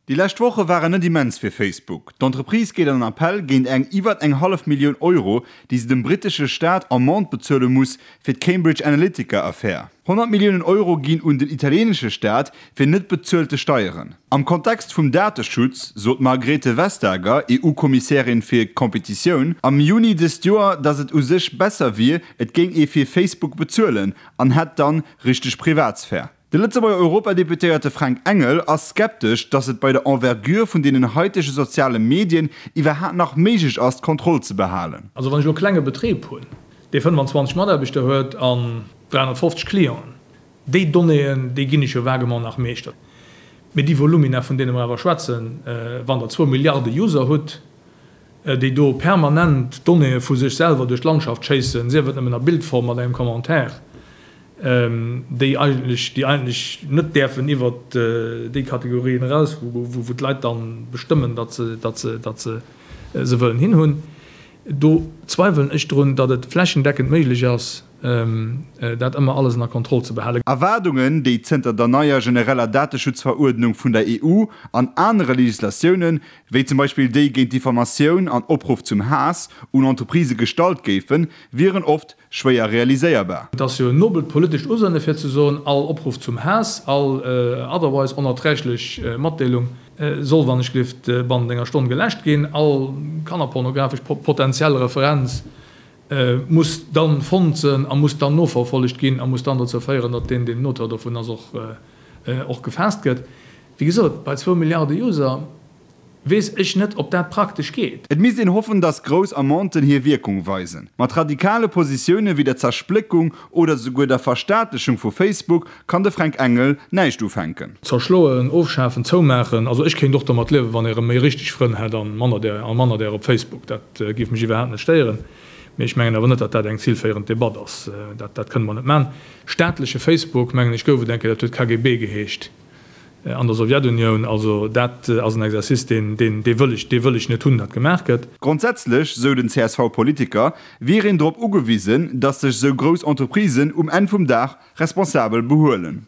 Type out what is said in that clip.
Déi lescht Woche waren net immens fir Facebook. D'Entreprise geet an Appell géint eng iwwer eng hallef Millioun Euro, déi se dem brittesche Staat Amende bezuele muss fir d'Cambridge Analytica-Affär. 100 Milliounen Euro ginn un den italieenesche Staat fir net bezuelte Steieren. Am Kontext vum Dateschutz sot d'Margrethe Vestager, EU-Kommissärin fir Competitioun, am Juni dëst Joer, datt et u sech besser wier, et géing ee fir Facebook bezuelen an hätt dann richteg Privatsphär. De Lëtzebuerger Europadeputéierte Fränk Engel ass skeptesch, datt et bei der Envergure vun deenen haitege soziale Medien iwwerhaat nach méiglech ass, d'Kontroll ze behalen. Also wann ech elo e klenge Betrib hunn, dee 25 Mataarbechter huet an 350 Clienten, déi Donnéeën, déi ginn ech jo vaguement nach meeschter. Mee déi Volumina, vun deene mer awer schwätzen, wann Der zwou Milliarde User hutt, déi do permanent Donnéeë vu sech selwer duerch d'Landschaft schéissen, sief et nëmmen a Bildform mat engem Commentaire, déi eigentlech, déi eigentlech net däerfen iwwert déi Kategorien eraus, wou d'Leit da bestëmmen, datt se, datt se, datt se se wëllen hinhunn. Do zweiwelen ech drun, datt et flächendeckend méiglech ass, dat ëmmer alles ënner Kontroll ze behalen. Erwaardungen, déi zënter der neier genereller Dateschutzveruerdnung vun der EU an anere Legislatiounen, wéi zum Beispill déi géint Diffamatioun an Opruff zum Haass, un Entreprisë gestallt géifen, wieren oft schwéier realiséierbar. Et ass jo en nobelt politescht Usënne fir ze soen, all Opruff zum Haass, all otherwise onerträglech Matdeelung soll wann ech gelift bannent enger Stonn geläscht ginn, all kannerpornografesch potentiell Referenz muss dann fonnt sënn a muss dann noverfollegt ginn a muss dann dozou féieren, datt deen, deen den Auteur dovun ass, och och gefaasst gëtt. Wéi gesot, bei zwou Milliarde User weess ech net, ob dat praktesch geet. Et misst een hoffen, datt grouss Amenden hir Wierkung weisen. Mat radikale Positioune wéi der Zerspléckung oder souguer der Verstaatlechung vu Facebook kann de Fränk Engel näischt ufänken. Zerschloen, ofschafen, zoumaachen, also ech kéint och domat liewen, wann ee rëm méi richteg Frënn hätt an manner där a manner där op Facebook. Dat géif mech iwwerhaapt net stéieren. Mee ech mengen awer net, datt dat eng zilféierend Debatt ass. Dat dat kënne mer net maachen. Staatleche Facebook, mengen ech, gouf et eng Kéier, dat huet KGB geheescht an der Sowjetunioun. Also dat ass en Exercice, deen deen dee wëll ech dee wëll ech net hunn, datt gemaach gëtt. Grondsätzlech, sou den CSV-Politiker, wier een drop ugewisen, datt sech sou grouss Entreprisen um Enn vum Dag responsabel behuelen.